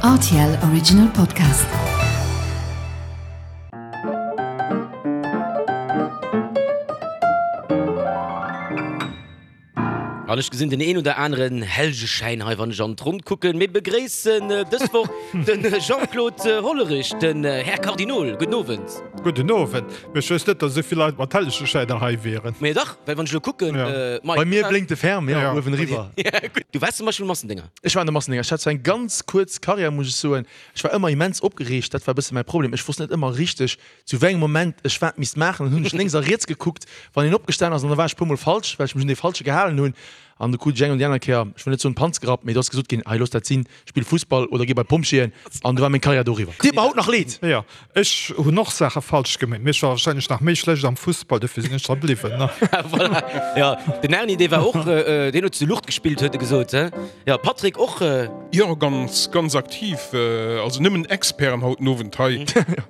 RTL Original Podcast. An ech gesinn den een oder aneren Hellgeschäin hei, wann ech an d'Ronn kucken. Mir begréissen dës Woch de Jean-Claude Hollerich, den Här Kardinol. Gudden Owend. Gudden Owend. Mee ech wësst net, datt esou vill Leit mat Hellegeschäiner hei wieren. Mee dach, well wann ech elo kucken, Mike. Bei mir blénkt de Ferm, jo, uewen eriwwer. Du waars zum Beispill Massendénger. Ech war an de Massendénger. Ech hat zwar eng ganz kuerz Karriär, muss ech soen. Ech war ëmmer immens opgereegt, dat war e bësse mäi Problem. Ech wosst net ëmmer richteg, zu wéi engem Moment ech wat misst maachen. Dann hunn ech lénks a riets gekuckt, wann een opgestan ass, an da war ech e puermol falsch, well ech mech un dee Falsche gehalen hunn. An du krut ech eng an déi aner Kéier, ech wëll net soen d'Panz gerappt, mee do ass gesot ginn, hei looss dat sinn, spill Fussball oder gi bei d'Pompjeeën. An du war meng Karriär doriwwer. Deet mer haut nach leed. Jo, ech hunn och Saache falsch gemeet, mee ech war warscheinlech nach méi schlecht am Fussball, dofir sinn ech dra bliwwen. Voilà, jo, den Erni, dee war och, deen huet zu Lucht gespillt, huet e gesot, he? Jo, Patrick och. Jo, ganz, ganz aktiv. Also nëmmen Experten haut den Owend hei.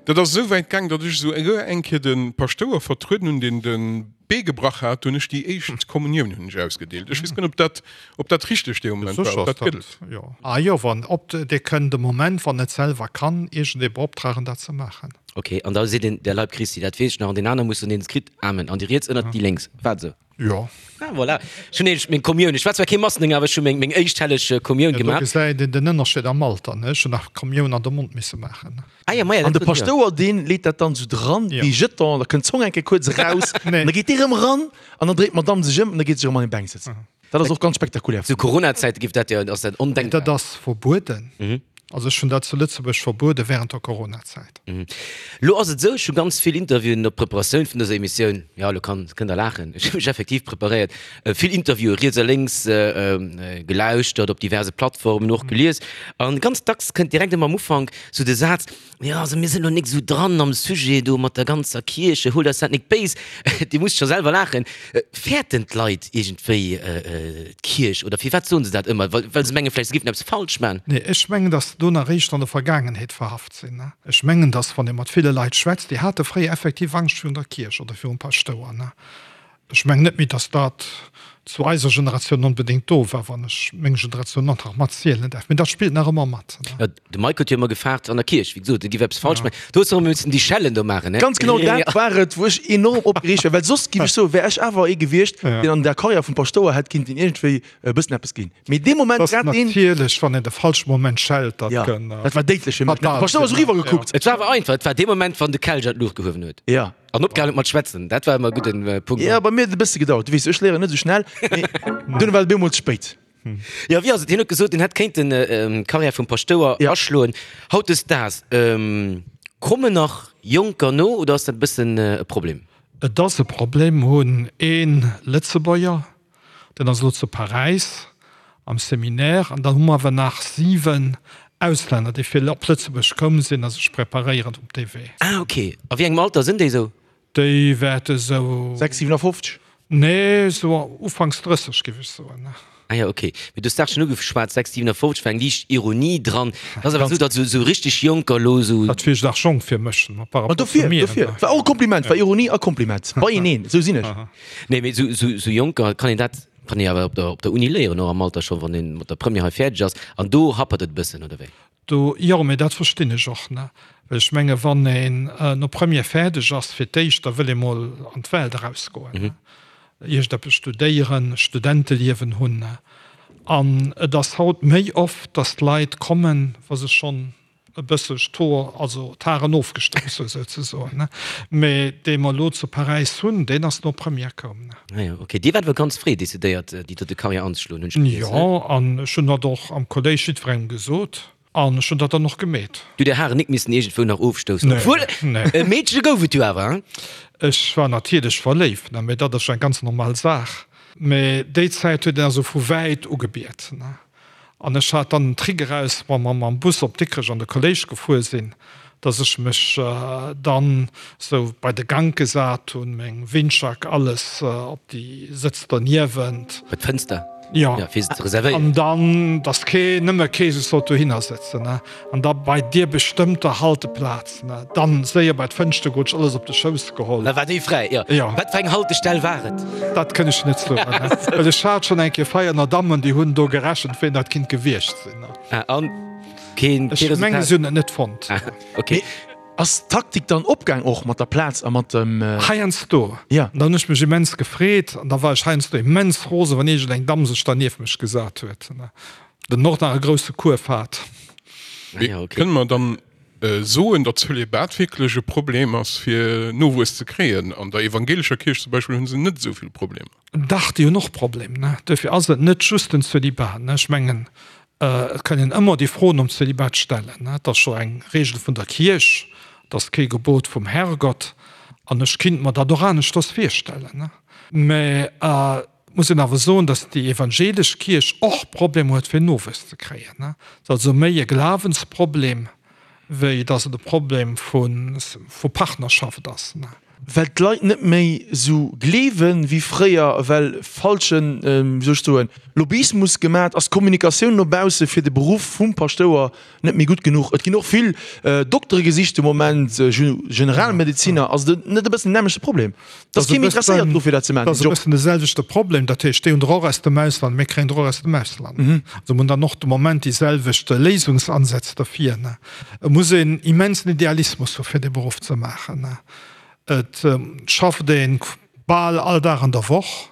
Dat ass esou wäit gaang, datt ech esou eng Kéier de Paschtouer vertrueden hunn, deen de Bee gebrach hat. Do hunn ech déi éischt Kommunioun hunn ech ausgedeelt. Ech weess guer net, ob dat, ob dat richteg dee Moment war, ob dat gëllt. Ah jo, wann, ob, Dir kënnt de Moment, wann et selwer kann, iergendee beoptragen, dat ze maachen. Ok, an da seet een, der Leib Christi, dat weess ech nach, an deen aner muss dann deen et kritt, Amen, an déi riets ënnert déi lénks. War et esou? Jo. Ah, voilà. Ech hunn nämlech meng Kommioun, ech war zwar kee Massendénger, awer ech hu meng, meng éischt helleg Kommioun Ja, do gemaach. gesäit een den Ënnerscheed am Alter, ne? Ech hunn nach d'Kommioun an de Mond misse maachen. Ah ja, maja, An dat de huet, ja. Paschtouer, deen leet dat dann esou dran, Ja. dee Jeton, da kënnt d'Zong eng Kéier kuerz eraus, Nee. an da geet dee rëm eran, an dann dréit d'Madame sech ëm an da geet se erëm an hir Bänk sëtzen. Dat ass och ganz spektakulär. Zu Corona-Zäite giff dat jo, ass dat ondenkbar. Dat ass verbueden. Also ech hunn dat zu Lëtzebuerg verbuede während der Coronazäit. Lo ass et esou, ech hu ganz vill Interviewen op d'Preparatioun vun dëser Emissioun, jo lo kann, kënnt der laachen, ech hu mech effektiv preparéiert, vill Interviewe riets a lénks gelauschtert, op diverse Plattformen och gelies an ganz dacks kënnt direkt ëmmer am Ufank sou de Saz, Jo, also mir sinn elo nik esou dran am Sujet do mat der ganzer Kierche, huelt eis dat nik béis. Dir musst scho selwer laachen. Fäerten d'Leit iergendwéi d'Kierch oder firwat soen se dat ëmmer? Well well se mengen vläicht se géifen eppes falsch man? Nee, ech mengen, datt se do nach eréischt an der Vergaangenheet verhaft sinn. Ech mengen, datt wann ee mat ville Leit schwätzt, déi hate fréier effektiv Angscht virun der Kierch oder virum Paschtouer. Ech mengen net méi, datt dat zu eiser Generatioun onbedéngt do war, wann ech meng Generatioun och nach matzielen däerf. Mee dat spillt nach ëmmer mat. Jo, de Mike huet jo ëmmer gefaart an der Kierch, wéi gesot, e giff eppes falsch maachen. Do hues de och ëmmer missen déi Schellen do maachen, ne? Ganz genau dat war et, wou ech enorm opgereegt war, well soss, giff ech soen, wär ech awer ee gewiescht, deen an der Karriär vum Paschtouer hätt kinnten iergendwéi e bëssen eppes ginn. Mee dee Moment, Dat ass grad deen. natierlech, wann een de falsche Moment schellt, dat kënn. Jo, dat war déidlech fir mech. De fatal Paschtouer ass sinn. eriwwer gekuckt. Et war awer einfach, et war dee Moment, wann de Kelch an d'Luucht gehuewen huet. Jo. An opgehalen huet mat schwätzen, dat war ëmmer e gudden Punkt. Jo, bei mir huet et e bësse gedauert. Du weess, ech léieren net esou schnell, mee dunn war et op eemol ze spéit. Jo, wéi ass et? Hien huet gesot, hien hätt kéinten d'Karriär vum Paschtouer aschloen. Hautdesdaags, kommen nach Jonker no oder ass dat e bëssen e Problem? Et ass e Problem. Mir hunn ee Lëtzebuerger, Deen ass elo zu Paräis am Seminaire. An dann hu mer awer nach 7 Auslänner, déi fir op Lëtzebuerg koum sinn a sech preparéieren op dee Wee. Ah, ok. A wéi engem Alter sinn déi esou? Déi wäerte sou. 6, 57? Nee, sou ufanks 30, géif ech soen. Ah jo, ok. Mee du hues d'Saach schonn ugeschwat, 6, 57 war eng liicht Ironie dran. Et ass awer esou, datt esou richteg Jonker elo esou. Dat wier nach jonk fir mech, par Ma rapport zu dofir, mir. dofir. War och e Kompliment, war Ironie a Kompliment beieneen, esou sinn ech. Nee, mee sou, sou, sou Jonker kann een dat, kann ee awer op der, op der Uni léieren, och am Alter scho, wann ee mat der Première hei fäerdeg ass. An do happert et e bëssen, oder wéi? Do, jo, mee dat verstinn ech och, ne? Well ech menge wann een no Première fäerdeg ass, fir d'éischt, da wëll ee mol an d'Welt erausgoen, ne? Iergendeppes studéieren, Studenteliewen hunn, ne? An et ass haut méi oft, datt d'Leit kommen, wa se schonn e bësseg d'Hoer, also d'Haren ofgestouss hu souzesoen, ne? Mee dee mer elo zu Paräis hunn, deen ass no Première koum, ne? Ah jo, ok. Dir waart awer ganz fréi decidéiert, déi dote Karriär anzeschloen, hunn ech gelies, ne? Jo, an ech hunn dat och am Kolléisch jiddwerengem gesot an ech hunn dat dann och gemeet. Du, där Haren nik missen iergendwou nach ofstoussen, Nee, obwuel nee. e Meedche gouf et jo awer, hein? Ech war natierlech verléift, ne, mee dat ass jo eng ganz normal Saach. Mee déi Zäit huet een also vu wäit ugebiet, ne? An ech hat dann den Trick eraus, wa mer mam Bus op Dikrech an de Kolléisch gefuer sinn, dass ech mech dann sou bei de Gank gesat hunn, meng Windjack, alles op déi Sëtz derniewent. Bei d'Fënster? Jo. Ja, fir se ze reservéieren. An dann, dass kee, nëmme kee sech sollt dohinner sëtzen, ne. An da bei deer bestëmmter Halteplaz. Na, dann séier bei d'Fënschter goen, alles op de Schouss geholl. Da war déi fräi, jo. Jo. Wat fir eng Haltestell war et? Dat kënn ech net soen, well ech hat schonn eng Kéier Veianer Dammen, déi hunn do gerechent, ween dat kinnt gewiescht sinn. Ah, an? keen Ech menge si hunn et net fonnt. Okay. Mee ass d'Taktik dann opgaang och mat der Plaz a mat dem. Heiansdo. Ja. An da hunn ech mech immens gefreet an da war ech heiansdo immens rosen, wann iergend eng Damm sech da nieft mech gesat huet, den och nach e grousse Kuerf hat. Mee kënne mer dann soen, datt Zölibat wierklech e Problem ass fir Nowuess ze kréien? An der evangelescher Kierch zum Beispill hu se net esou vill Problemer. Dach, déi hunn och Problem, ne? Duerfir ass et net just den Zölibat, ne? Ech mengen, et kann een ëmmer déi Fro nom Zölibat stellen, ne? Et ass scho eng Regel vun der Kierch, et ass kee Gebot vum Herrgott, an ech kinnt mer dat och aneschters virstellen, ne? Mä et muss een awer soen, datt déi evangelesch Kierch och Problemer huet fir Nowuess ze kréien, ne? Et ass also méi e Glawensproblem, wéi datt et e Problem vu Partnerschaft ass. Well d'Leit net méi esou gleewen wéi fréier, well falschen, wéi soll ech soen, Lobbyismus gemat ass, d'Kommunikatioun no bausse fir de Beruff vum Paschtouer net méi gutt genuch. Et ginn och vill Doktere gesicht de Moment, Generalmedeziner. Ass et net e bëssen den nämmlechte Problem? Et ass kee méi interesséiert dru fir dat ze maachen, Dat ass e bëssen de selwechte Problem. Dat heescht, déi hunn der och aus dem Ausland, mir kréien der och aus dem Ausland. Also mir hunn dann och de Moment déi selwecht Léisungsansätz derfir. Et muss een immensen Idealismus hu fir dee Beruff ze maachen. Et schafft ee bal all Dag an der Woch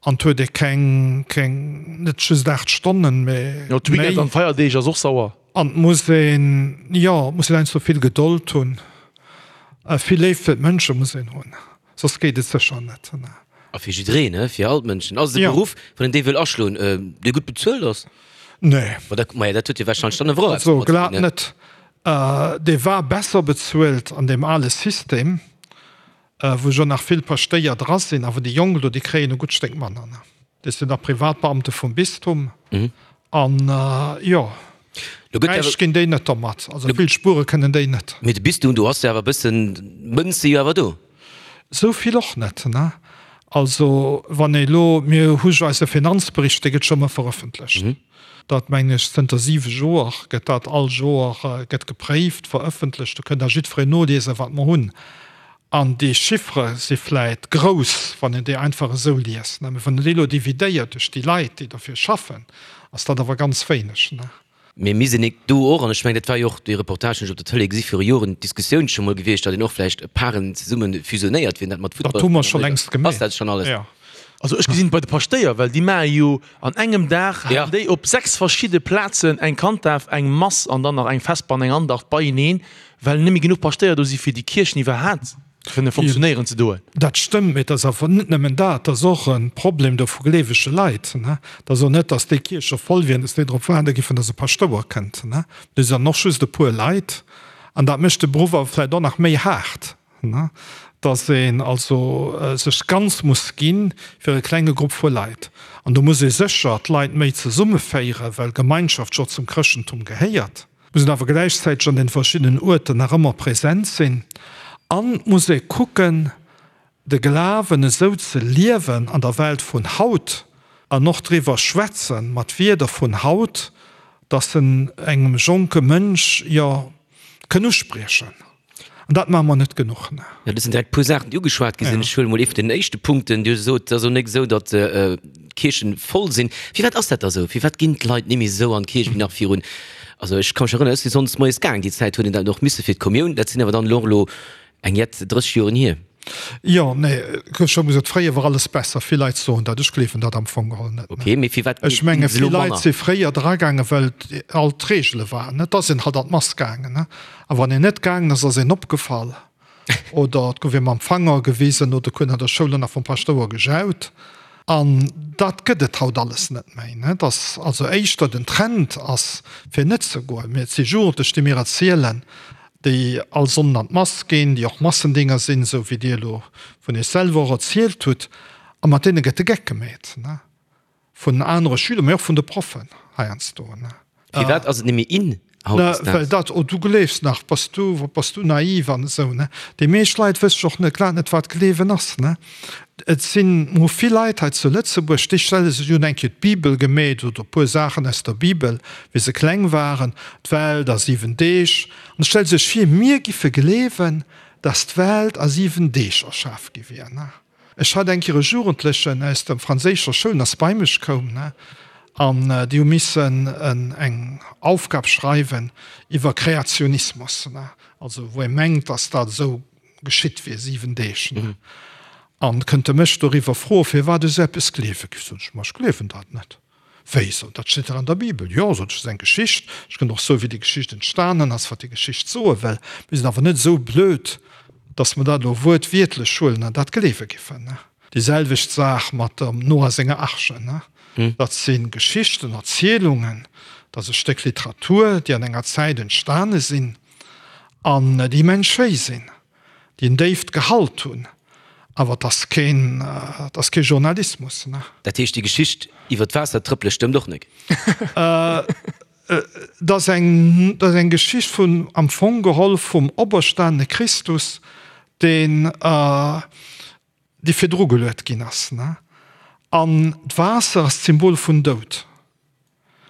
an et huet ee keng, keng, net just 8 Stonnen, mee Jo, d'Weekend méi. an d'Feierdeeg ass och sauer. An et muss een, jo, et muss een heiansdo vill Gedold hunn. Vill Léift fir d'Mënsche muss een hunn, soss geet et sécher net. A fir jiddereen, he, fir all d'Mënschen. Ass et e Beruff, wann een dee wëll aschloen, dee gutt bezuelt ass? Nee. Ma dat, maja, dat huet jo warscheinlech dann awer och eppes Also domat ze glat dinn, ne? net. Dee war besser bezuelt an deem ale System, wou jo nach vill Paschtéier dra sinn, awer déi Jonk elo, déi kréien e gutt Stéck manner. Déi sinn da Privatbeamte vum Bistum an jo, räich ginn déi net domat. Also vill spuere kënnen déi net. Mee de Bistum, do ass jo awer e bëssen, d'Mënz si jo awer do. Esou vill och net, ne? Also wann ee elo, mir hu jo eise Finanzbericht, dee gëtt scho ëmmer verëffentlecht. Dat mengen ech zënter siwe Joer gëtt dat all Joer gëtt gepréift, verëffentlecht. Do kënnt da jiddwereen noliesen, wat mer hunn. An déi Chiffere si vläit grouss, wann een déi einfach esou liest, mä wann een déi elo dividéiert duerch déi Leit, déi derfir schaffen, ass dat awer ganz wéineg. Mee mir sinn do och, an ech mengen, dat war jo och dee Reportage, deen ech op der Tëlee gesi viru Joren, d'Diskussioun scho mol gewiescht, datt een och vläicht Paren zesumme fusionéiert, wien dat mat Futtball. Dat hu mer scho längst gemaach. Ass dat schonn alles? Jo. Also ech gesinn et bei de Paschtéier, well déi maache jo an engem Dag, halen déi op 6 verschidde Plazen eng Kanddaf, eng Mass an dann nach eng Vesper an eng Andacht beieneen, well net méi genuch Paschtéier do si fir déi Kierchen iwwerhaat kënne fonctionnéieren ze doen. Dat stëmmt, mee et ass awer net nëmmen dat, et ass och e Problem do vu gleewege Leit. Et ass och net, datt déi Kierche voll wieren, datt déi drop waarde giffen, datt e Paschtouer kënnt. Do sinn dann och just e puer Leit an dat mécht de Beruff awer vläicht och nach méi haart. Dass een also sech ganz muss gi fir e klenge Grupp vu Leit. An do muss ee sécher d'Leit méi zesummeféieren, well Gemeinschaft jo zum Chrëschtentum gehéiert. Muss een awer gläichzäiteg an den verschiddenen Uerten nach ëmmer präsent sinn. An muss ee kucken, de Glawen esou ze liewen an der Welt vun haut an och driwwer schwätzen mat Wierder vun haut, dass en engem jonke Mënsch jo kënn uspriechen. An dat maache mer net genuch. Jo, dat sinn direkt e puer Saachen, déi ugeschwat gi sinn. Ech huele mol ee vun den éischte Punkten. Dir sot, et ass och net esou, datt d'Kierchen voll sinn. Firwat ass dat da esou? Firwat ginn d'Leit net méi esou an d'Kierch wéi nach virun, also ech ka mech erënneren, ech si sonndes moies gaang, déi Zäit huet een dat och misse fir d'Kommioun. Dat sinn awer dann elo och elo eng jett 30 Joren hier. Jo, nee, ech hu gesot, fréier war alles besser. Vill Leit soen dat, ech gleewen dat am Fong geholl net. Okay, mee firwat Ech menge vill Leit si fréier dragaangen, well all d'Reegele waren. Et ass een halt an d'Mass gaangen. A wann een net gaangen ass, ass een opgefall oder et gouf ee mam Fanger gewisen oder et huet an der Schoul och nach vum Paschtouer gejaut. An dat gëtt et haut alles net méi. Et ass also éischter den Trend ass, fir net ze goen. Mee et si Jugendlech, déi mir erzielen, déi all Sonnden an d'Mass ginn, déi och Massendinger sinn, esou wéi Dir elo vun Iech selwer och erzielt hutt, a mat deene gëtt de Geck gemeet, vun anere Schüler, mee och vun de Proffen heiansdo. Firwat ass et net méi in hautdesdaags? Well dat, oh du gleefs nach, bass du, bass du naiv an esou. Déi meescht Leit wësse och net, grad net, wat Gleewen ass. Et sinn mo vill Leit hei zu Lëtzebuerg, déi stelle sech, déi hunn eng Kéier d'Bibel gemeet oder e puer Saachen aus der Bibel, wéi se kleng waren, d'Welt a 7 Deeg, an stelle sech vir, mir giffe gleewen, dass d'Welt a 7 Deeg erschaf gi wier. Ech hat eng Kéier e Jugendlechen aus der franséischer Schoul, deen ass bei mech koum, ne. An déi hu missen eng Aufgab schreiwen iwwer Kreationismus, also wou ee mengt, datt dat esou geschitt wier, 7 Deeg. An kënnt e mech doriwwer froen, firwat ech esou eppes gleewe géif. Sot ech, ma ech gleewen dat net. Wéi, sot, dat steet dach an der Bibel. Jo, sot ech, dat ass eng Geschicht. Ech kënnt och soen, wéi déi Geschicht entstanen ass, wat déi Geschicht soe wëll. Mir sinn awer net esou blöd, datt mer dat elo wuertwiertlech huelen an dat gleewe giffen. Déi selwecht Saach mat dem Noah senger Arche. Dat si Geschichten, Erzielungen, dat ass e Stéck Literatur, déi an enger Zäit entstane sinn an déi immens schéi sinn, déi en déift Gehalt hunn, awer et ass keen, et ass kee Journalismus. Dat heescht, déi Geschicht iwwer d'Waassertrëppele stëmmt och nek? Et ass eng, et ass eng Geschicht vun, am Fong geholl vum operstanene Christus, deen, déi virdru geluet ginn ass, ne? An d'Waasser ass d'Symbol vun Doud.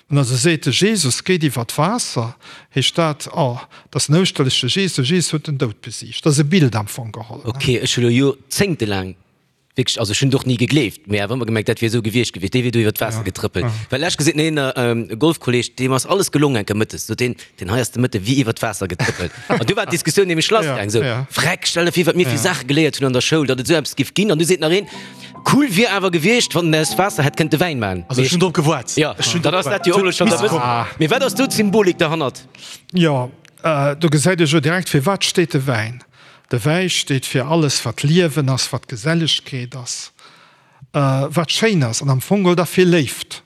Wann also seet, de Jesus geet iwwer d'Waasser, heescht dat, oh, dat ass den ouschterleche Jesus, de Jesus huet den Doud besiegt. Dat ass e Bild am Fong geholl, ne? Ok, ech hu lo joerzéngtelaang wierklech, also ech hunn et och ni gegleeft, mee awer ëmmer gemengt, dat wier esou gewiescht gewiescht, dee wier do iwwer d'Waasser getrëppelt. Well lech gesinn, een e Golfkolleg, deem ass alles gelong enke mëttes, sot deen, Deen hei ass de Mëtte wéi iwwer d'Waasser getrëppelt. An du war d'Diskussioun nämlech lassgaang, sou, Vreck, stell der vir, wat mir fir Saache geléiert hunn an der Schoul, datt et esou eppes giff ginn. An du seet nach een, Cool wier awer gewiescht, wann en aus Waasser hätt kënnte Wäin man. Also ech hunn drop gewaart. Jo, dann ass dat jo och elo schonn der bëssen. Mee wat ass do d'Symbolik derhannert? Jo, do gesäit ee jo direkt, fir wat steet de Wäin. De Wäi steet fir alles, wat Liewen ass, wat Gesellegkeet ass, wat schéin ass an am Fong geholl da fir Léift.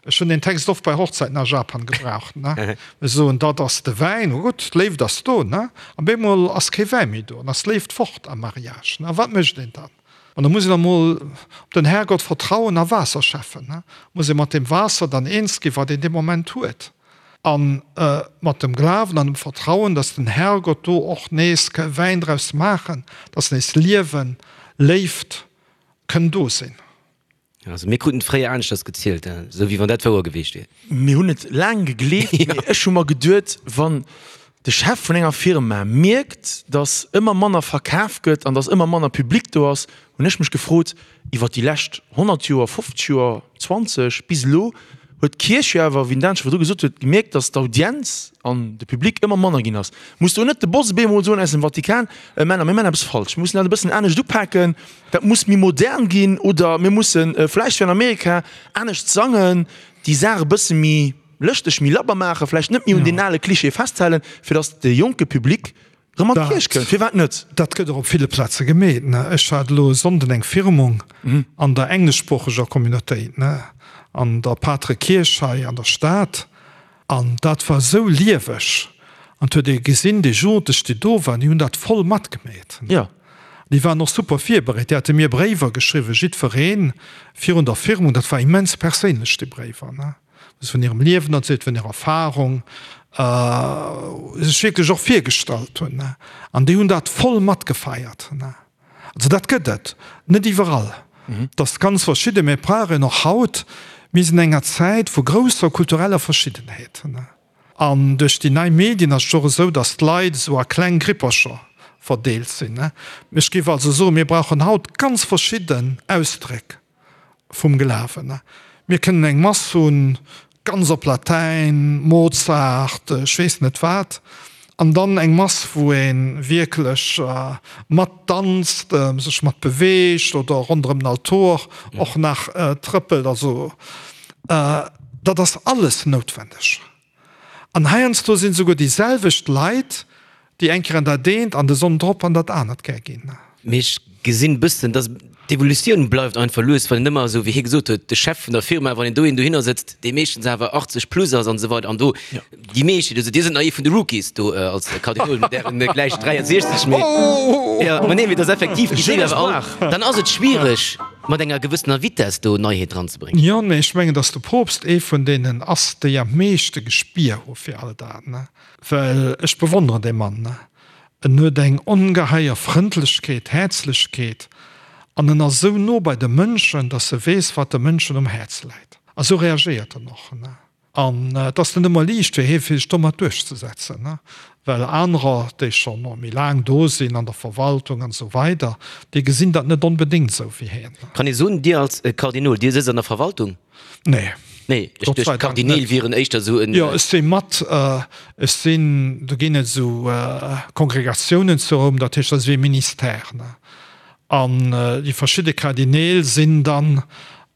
Ech hunn deen Text oft bei Hochzäiten a Japan gebraucht, ne. Ech soen, dat ass de Wäin, oh gutt, d'Léift ass do, ne. An bemol ass kee Wäi méi do, an ass d'Léift fort am Mariage, ne. A wat mécht een dann? An da muss een emol op den Herrgott vertrauen a Waasser schäffen, ne. Muss ee mat deem Waasser dann eens ginn, wat een dee Moment huet. A mat dem Glawen an dem Vertrauen, dass den Herrgott do och nees ka Wäin draus maachen, dass nees Liewen, Léift kënn do sinn. Also mir kruten et fréier aneschters gezielt, esou wéi wann dat wouer geweecht wier. Mir hunn et laang gegleeft, mee ech hu mer geduet, wann de Chef vun enger Firma mierkt, datt ëmmer manner verkaf gëtt an datt ëmmer manner Public do ass, hunn ech mech gefrot, iwwer déi lescht 100 Joer, 50 Joer, 20 bis elo, huet d'Kierch jo awer, wéi den Dan scho virdru gesot huet, gemierkt, datt d'Audienz an de Public ëmmer manner ginn ass. Muss do net de Boss op eemol soen aus dem Vatikan, Männer, mir maachen eppes falsch, mir mussen dat e bëssen anescht upaken, Dat muss méi modern ginn oder mir musse vläicht wéi an Amerika anescht sangen, déi Saach e bësse méi lëschteg, méi labber maachen, vläicht net méi un deen ale Klischee festhalen, fir datt de jonke Public erëm an d'Kierch kënnt. Firwat net? Dat gëtt och op ville Plaze gemeet. Ech hat elo e Sonnden eng Firmung an der engleschsproocheger Communautéit, an der Patre Kierch hei an der Stad. An dat war esou lieweg. An et huet ee gesinn, déi Jugendlech, déi do waren, déi hunn dat voll matgemeet. Jo. Déi waren och super virbereet. Déi hate mir Bréiwer geschriwwen, jiddweree virun der Firmung. Dat war immens perséinlech, déi Bréiwer, ne, wou se vun hirem Liewen erzielt, vun hirer Erfarung sech wierklech och virgestallt hunn, ne. An déi hunn dat voll matgefeiert, ne. Also dat gëtt et net iwwerall, et ass ganz verschidden, mä brauch een och haut. Mir sinn an enger Zäit vu grousser kultureller Verschiddenheet an duerch déi nei Medien ass et och esou, datt d'Leit esou a kleng Grippercher verdeelt sinn. Ech géif also soen, mir brauchen haut ganz verschidden Ausdréck. vum Glawen. Mir kënnen eng Mass hunn, ganz op Latäin, Mozart, ech weess net wat, an dann eng Mass, wou ee wierklech mat danzt, sech mat beweegt oder ronderëm den Altor och nach trëppelt. Also dat ass alles noutwendeg. An heiansdo sinn esouguer déi selwecht Leit, déi eng Kéier an dat eent an de Sonn drop an dat anert gär ginn. Mee ech gesinn e bëssen, dass d'Evolutioun bleift einfach lues, well en ëmmer esou, wéi hie gesot huet, de Chef vun der Firma, wann een do een dohinner sëtzt, dee meeschtens awer 80 plus ass an esou weider an do déi meescht, also Dir sidd nach ee vun de Rookies do als Kardinol mat Ären gläich 63, mee jo, ma nee, mee et ass effektiv, déi sinn awer all, dann ass et schwiereg mat enger gewëssener Vitess do Neiheet dran ze bréngen. Jo, mee ech mengen, datt de Poopst ee vun deenen ass, déi am meeschte Gespier hu fir all dat, ne? Well ech bewonneren dee Mann, ne? En huet eng ongeheier Frëndlechkeet, Häerzlechkeet an en ass esou no bei de Mënschen, datt e weess, wat de Mënschen um Häerz läit. A sou reagéiert en och, ne? An et ass net ëmmer liicht fir hie fir sech domat duerchzesetzen, well anerer, déi scho méi laang do sinn an der Verwaltung an esou weider, déi gesinn dat net onbedéngt esou wéi hien. Kann ee soen, Dir als Kardinol, Dir sëtzt an der Verwaltung? Nee. Nee, ech duecht d'Kardineel wieren éischter esou en. Jo, ech si mat, ech sinn, do ginn et esou Kongregatiounen zu Roum, dat heescht, dat ass wéi e Ministère, ne. An déi verschidde Kardineel sinn dann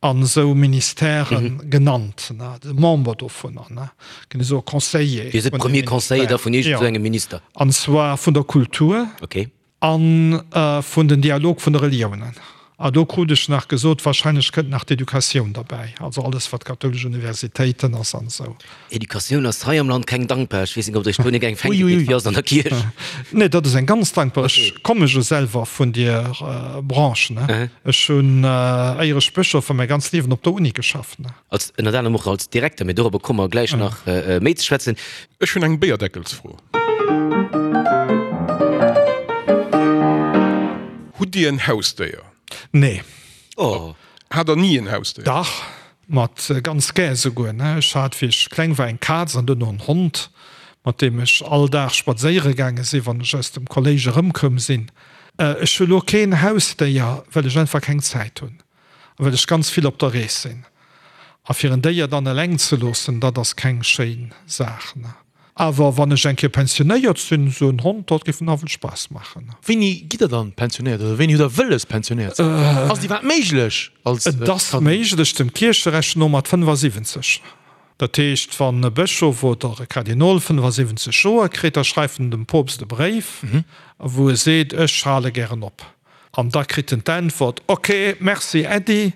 an esou Ministèrë genannt, ne, de Member dovunner, ne, ginn esou Conseiller. Dir sidd Premier Conseiller da vun iergend esou engem Minister? An zwar vun der Kultur. Okay. A vun den Dialog vun de Reliounen. A do krut ech nach gesot, wahrscheinlech kënnt nach d'Educatioun derbäi, also alles wat kathoulesch Universitéiten ass an esou. Educatioun ass hei am Land keng dankbar. Ech weess net, ob Der iech do net eng fänke gitt, wéi ass et an der Kierch? Nee, dat ass eng ganz dankbar. Ech komme jo selwer vun dier Branche, ne. Ech hunn, éier ech Bëschof war, mäi ganzt Liewen op der Uni geschafft, ne. Als, ënnert anerem och als Direkter, mee dorobber komme mer gläich nach méi ze schwätzen. Ech hunn eng Béierdeckelsfro. Hutt Dir en Hausdéier? Nee. Oh. Hat der ni en Hausdéier? Dach, mat ganz gär esouguer. Ech hat, wéi ech kleng war, eng Kaz an duerno en Hond, mat deem ech all Dag spadséiere gaange sinn, wann ech aus dem Kolléisch erëmkoum sinn. Ech hu lo keen Hausdéier, well ech einfach keng Zäit hunn a well ech ganz vill op der Rees sinn. A fir en Déier dann eleng ze loossen, dat ass keng schéin Saach. Awer wann ech eng Kéier pensionéiert sinn, esou en Hond, dat géif nawell Spaass maachen. Wéini gitt der dann pensionéiert oder wéini hutt der wëlles pensionéiert ze ginn? Ass et iwwerhaapt méiglech als Et ass méiglech, dem Kiercherecht no mat 75. Dat heescht, wann e Bëschof oder e Kardinol 75 Joer kritt, da schreift en dem Poopst e Bréif, wou e seet, ech hale gären op. An da kritt en d'Äntwert, Ok, merci Äddi,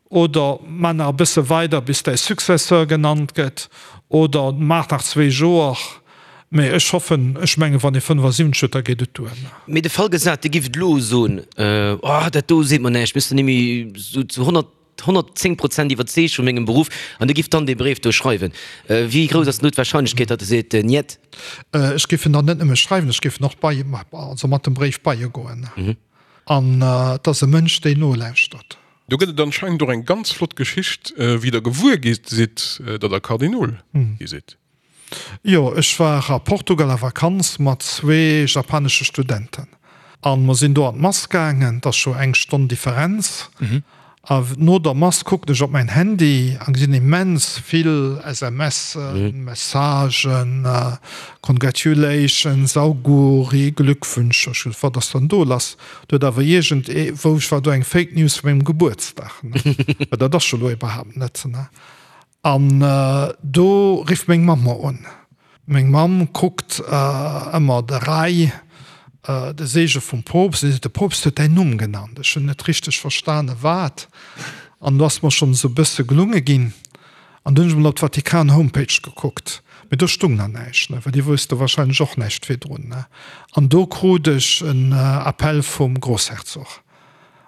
Oder maach nach e bësse weider bis däi Successeur genannt gëtt. Oder maach nach zwee Joer. Mee ech hoffen, ech mengen, wann ee 75 huet, da geet et duer. Mee de Fall gesat, Dir gift elo soen, Oh, dat do seet mer näischt, mir sinn net méi esou zu 100, 110 Prozent iwwerzeegt vu mengem Beruff, an Dir gift dann dee Bréif do schreiwen, wéi grouss ass denn do d'Wahrscheinlechkeet, datt e seet, Niet? Ech géif en dann net nëmme schreiwen, ech géif en och bei, also mat dem Bréif bei e goen. An et ass e Mënsch, deen nolauschtert. Do gëtt et anscheinend och eng ganz flott Geschicht, wéi der gewuer gi sidd, datt der Kardinol gi sidd. Jo, ech war a Portugal a Vakanz mat zwee japanesche Studenten an mer sinn do an d'Mass gaangen. Et ass scho eng Stonn Differenz. A no der Mass kucken ech op mäin Handy an gesinn immens vill SMSen, Messagen, Congratulations, Auguri, Glückwünsche. Ech gesot, wat ass dann do lass? Do huet awer iergend ee, wou ech war, do eng Fake News vu mengem Gebuertsdag, ne? Well dat ass jo elo iwwerhaapt net, ne? An do rifft meng Mamm mer un. Meng Mamm kuckt ëmmer de Rai, de Seege vum Poopst, an si seet, De Poopst huet däin Numm genannt. Ech hunn net richteg verstane wat. An do ass mer schonn esou e bësse gelunge ginn. An du hunn ech mol op d'Vatikan-Homepage gekuckt, mee do stung nach näischt, ne, well déi wousste wahrscheinlech och näischt virdrun, ne. An do krut ech en Appel vum Grossherzog.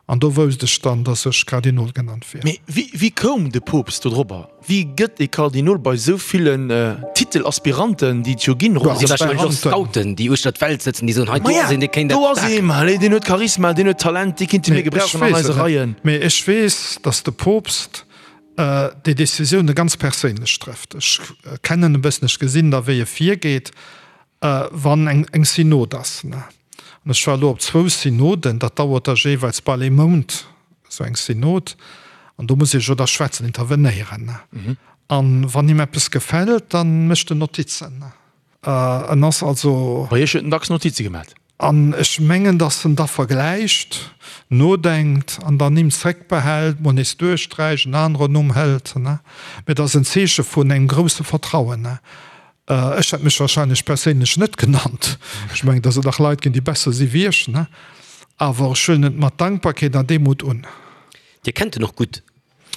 An do wousst ech dann, dass ech Kardinol genannt wier. Mee wéi koum de Poopst dodrobber? Wéi gëtt ee Kardinol bei esou villen Titelaspiranten, déi et jo ginn, ronderëm d'Welt? Wahrscheinlech och Scouten, déi uechter d'Welt sëtzen, déi soen, hei do ass een, dee kéint dat paken. Do ass ee, ma allez, deen huet Charisma, deen huet Talent, dee kéinte mir gebrauchen an eise Reien. Mee ech weess, dass de Poopst déi Decisioune ganz perséinlech trëfft. Ech kennen e bëssen, ech gesinn da wéi e virgeet, wann eng Synod ass. An ech war elo op zwou Synoden, dat dauert da jeeweils bal ee Mount, esou eng Synod. An do muss ee jo da schwätzen, intervenéieren. An wann him eppes gefält, da mécht en Notizen. En ass also. Bei Iech huet en dacks Notize gemat. An ech mengen, datt en da vergläicht, nodenkt an dann Nimm zréckbehält, mol nees duerchsträicht, en aneren Numm hëlt. Mee et ass en Zeeche vun engem grousse Vertrauen. Ech hätt mech wahrscheinlech perséinlech net genannt. Ech mengen, datt et nach Leit ginn, déi besser si wéi ech. Awer ech huelen et mat Dankbarkeet an Demut un. Dir kennt en och gutt.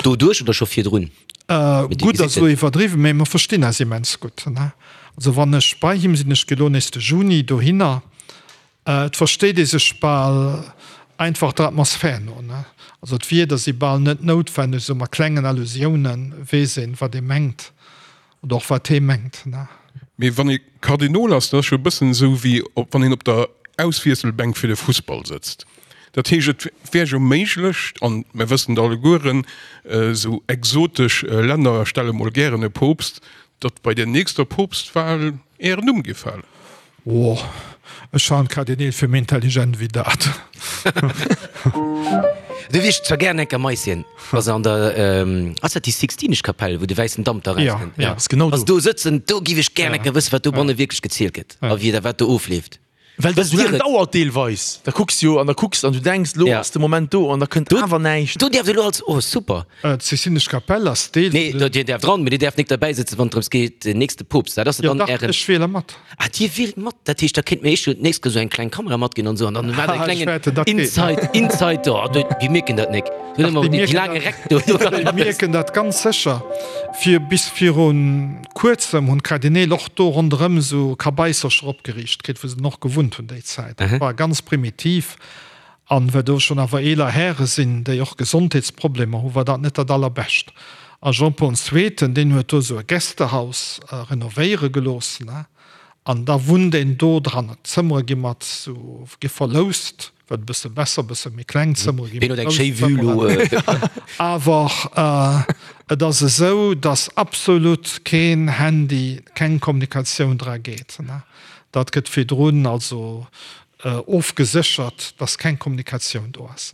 Doduerch oder scho virdrun? Gutt ass elo iwwerdriwwen, mee mer verstinn eis immens gutt. Also wann ech bei him sinn, ech gi elo nees de Juni dohinner, et versteet ee sech bal einfach der Atmosphär no. Also d'Wierder si bal net noutwenneg, esou mat klengen Allusiounen weess een, wat ee mengt. Oder och wat hee mengt. Mee wann ee Kardinol ass, dat ass jo e bëssen esou wéi wann een op der Auswiesselbänk fir de Fussball sëtzt. Dat heescht, et wär jo méiglech, an mer wëssen et allegueren, esou exotesch Länner stelle mol gären e Poopst, datt bei der nächster Poopstwal Ären Numm géif falen. Oh, ech halen d'Kardineel fir méi intelligent wéi dat. Do wier ech zwar gären enker Maisien, wa se an der, ass dat déi Sixtinesch Kapell, wou de wäissen Damp da rauskënnt? Ja, ass genau do. Wa se do sëtzen, do giff ech gären enker wëssen, wat dobanne wierklech gezielt gëtt a wéi da wat do ofleeft. Well dat esou laang dauert deelweis. Da kucks jo an da kucks an du denks, lo ass de Moment do an da kënnt awer näischt. Do däerft elo als, oh super. D'Sixtinesch Kapell ass Deel vun den. Nee, Dir däerft dran, mee Dir däerft nik derbäi sëtzen, wann et drëms geet, den nächste Poopst, dat ass jo dann Ären. Jo dach, ech wiele mat. Ah, Dir wielt mat, dat heescht, da kéint mir eech jo d'nächst Kéier esou eng kleng Kamera matginn an esou an dann maacht e klengen Inside, Inside do. Déi mierken dat nik. Dach, déi mierken dat, déi mierken dat ganz sécher. Fir bis viru kuerzem hunn d'Kardineel och do ronderëm esou Kabaissercher opgeriicht kritt, wou se dann och gewunnt hunn déi Zäit. Dat war ganz primitiv. An well do schonn awer eeler Häre sinn, déi och Gesondheetsproblemer hunn, war dat net dat Allerbescht. A Jean-Paul Zweeten, deen huet do esou e Gästehaus renovéiere gelooss, an da wunnt een do dran. D'Zëmmere gi mat esou, gi verloust. Wat e bësse besser, e bësse méi kleng Zëmmere ginn. Ween huet eng schéi Vue lo? Awer et ass esou, datt absolut keen Handy, keng Kommunikatioun dra geet. Dat gëtt virdrun also ofgeséchert, datt keng Kommunikatioun do ass.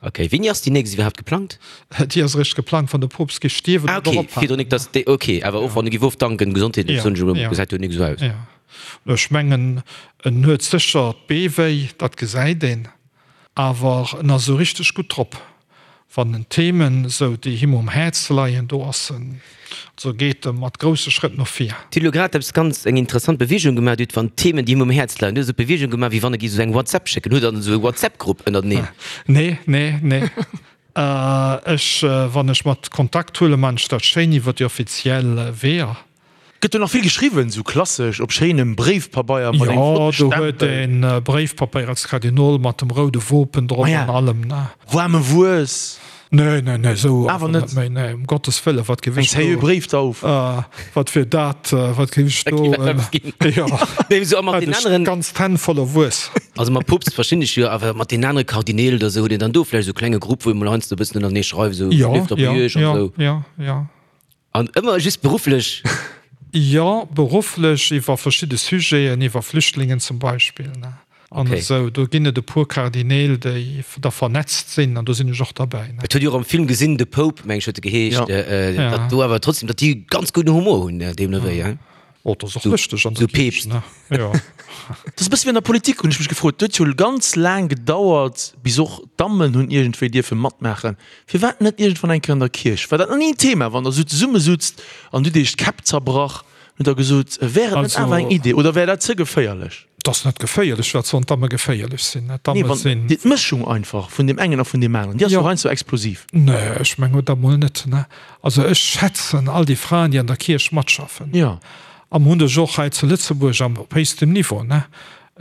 Ok, wéini ass déi nächst iwwerhaapt geplangt? Déi ass eréischt geplangt, wann de Poopst géif stierwen oder ophalen. Ah ok, virdrun nik, datt déi, ok, awer och wann e géif ofdanken, gesondheetlech soen ech elo, gesäit jo nik esou aus. Jo, ech mengen en huet sécher d'Bee wéi, dat gesäit een, awer en ass esou richteg gutt drop, wann en Themen esou déi him um Häerz leien, do ass en, also geet e mat grousse Schrëtt no vir. Dir hutt elo grad eppes ganz, eng interessant Beweegung gemaach, Dir hutt wann Themen déi him um Häerz leien, dir hutt esou d'Beweegung gemaach wéi wann e géif esou eng WhatsApp schécken. Hutt Der dann esou e WhatsApp-Grupp ënnerteneen? Nee, nee, nee. Ech, wann ech mat Kontakt huelen, man ech dat schéin iwwer déi offiziell Weeër. Gëtt do nach vill geschriwwen, sou klassesch op schéinem Bréifpabeier mat engem Jo, flotte do huet Stempel? een Bréifpapeier als Kardinol mat dem roude Wopen drop Maja, an allem, ne? Waarme Wues? Nee, nee, nee, sou Awer net méi, nee, um Gottes Wëllen, wat géif Eng ech seriö do, Bréifdauf? wat wier dat, wat géif ech Da do, géif eppes ginn. jo, Nee, sou a mat hätt den ech aneren, ganz d'Hänn voller Wues. also mam Poopst verstinn ech jo, awer mat den anere Kardineel oder sou, hutt een dann do vläicht sou e klenge Grupp, wou ee mol heiansdo e bëssen ënnertenee schreift, sou, Jo, leeft op jo, Iech an jo, sou? jo, jo. An ëmmer just berufflech? Jo, berufflech, iwwer verschidde Sujeten, iwwer Flüchtlingen zum Beispill, ne, an esou. Do ginn et e puer Kardineel, déi da vernetzt sinn, an do sinn ech och derbäi, ne. Et huet jo och am Film gesinn, The Pope, meng ech huet e geheescht, datt do awer trotzdem, datt déi ganz gudden Humor hunn, deemno wéi, hein? Oh, dat ass och lëschteg an der Kierch, ne? Jo. Dat ass e bësse wéi an der Politik, hunn ech mech gefrot. Et huet jo ganz laang gedauert, bis och d'Dammen hunn iergendwéi dierfe matmaachen. Firwat net iergendwann eng Kéier an der Kierch? War dat nach ni en Thema, wann der esou zesummesutzt an hutt iech d'Käpp zerbrach, hutt der gesot, wär et net awer eng Idee oder wär dat ze geféierlech? Et ass net geféierlech. Wat sollen d'Damme geféierlech sinn? D'Damme nee, sinn. Déi Mëschung einfach vun deem engen a vun deem aneren, déi ass jo heiansdo explosiv. Nee, ech mengen dat mol net. Also ech schätzen all déi Fraen, déi an der Kierch matschaffen. Jo. A mer hunn dech och hei zu Lëtzebuerg am, op héchstem Niveau.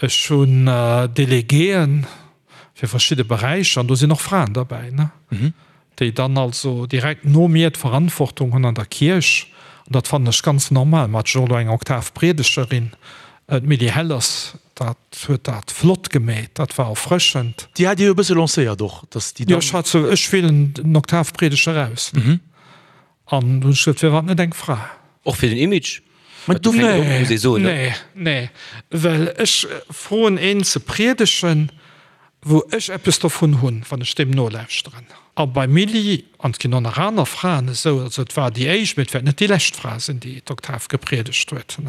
Ech hunn Delegéen. fir verschidde Beräicher, an do sinn och Fraen derbäi, ne, déi dann also direkt no mir d'Verantwortung hunn an der Kierch. An dat fannen ech ganz normal. Mer haten jo och elo eng Oktavpriedegerin, d'Milly Hellers, dat huet dat flott gemeet, dat war erfrëschend. Déi hat Dir jo e bësse lancéiert och, dass déi dann. Jo, ech hat se, ech wielen den Oktavpriedeger aus. An du hunn ech gesot, firwat net eng Fra? Och fir den Image? Mä du, nee, nee, nee, well ech froen een ze priedegen, wou ech eppes dovun hunn, wann ech deem nolauschteren. A beim Milly, an et ginn och nach aner Fraen esou, also et war déi éischt, mee et wäert net déi lescht Fra sinn, déi d'Oktav gepriedegt huet,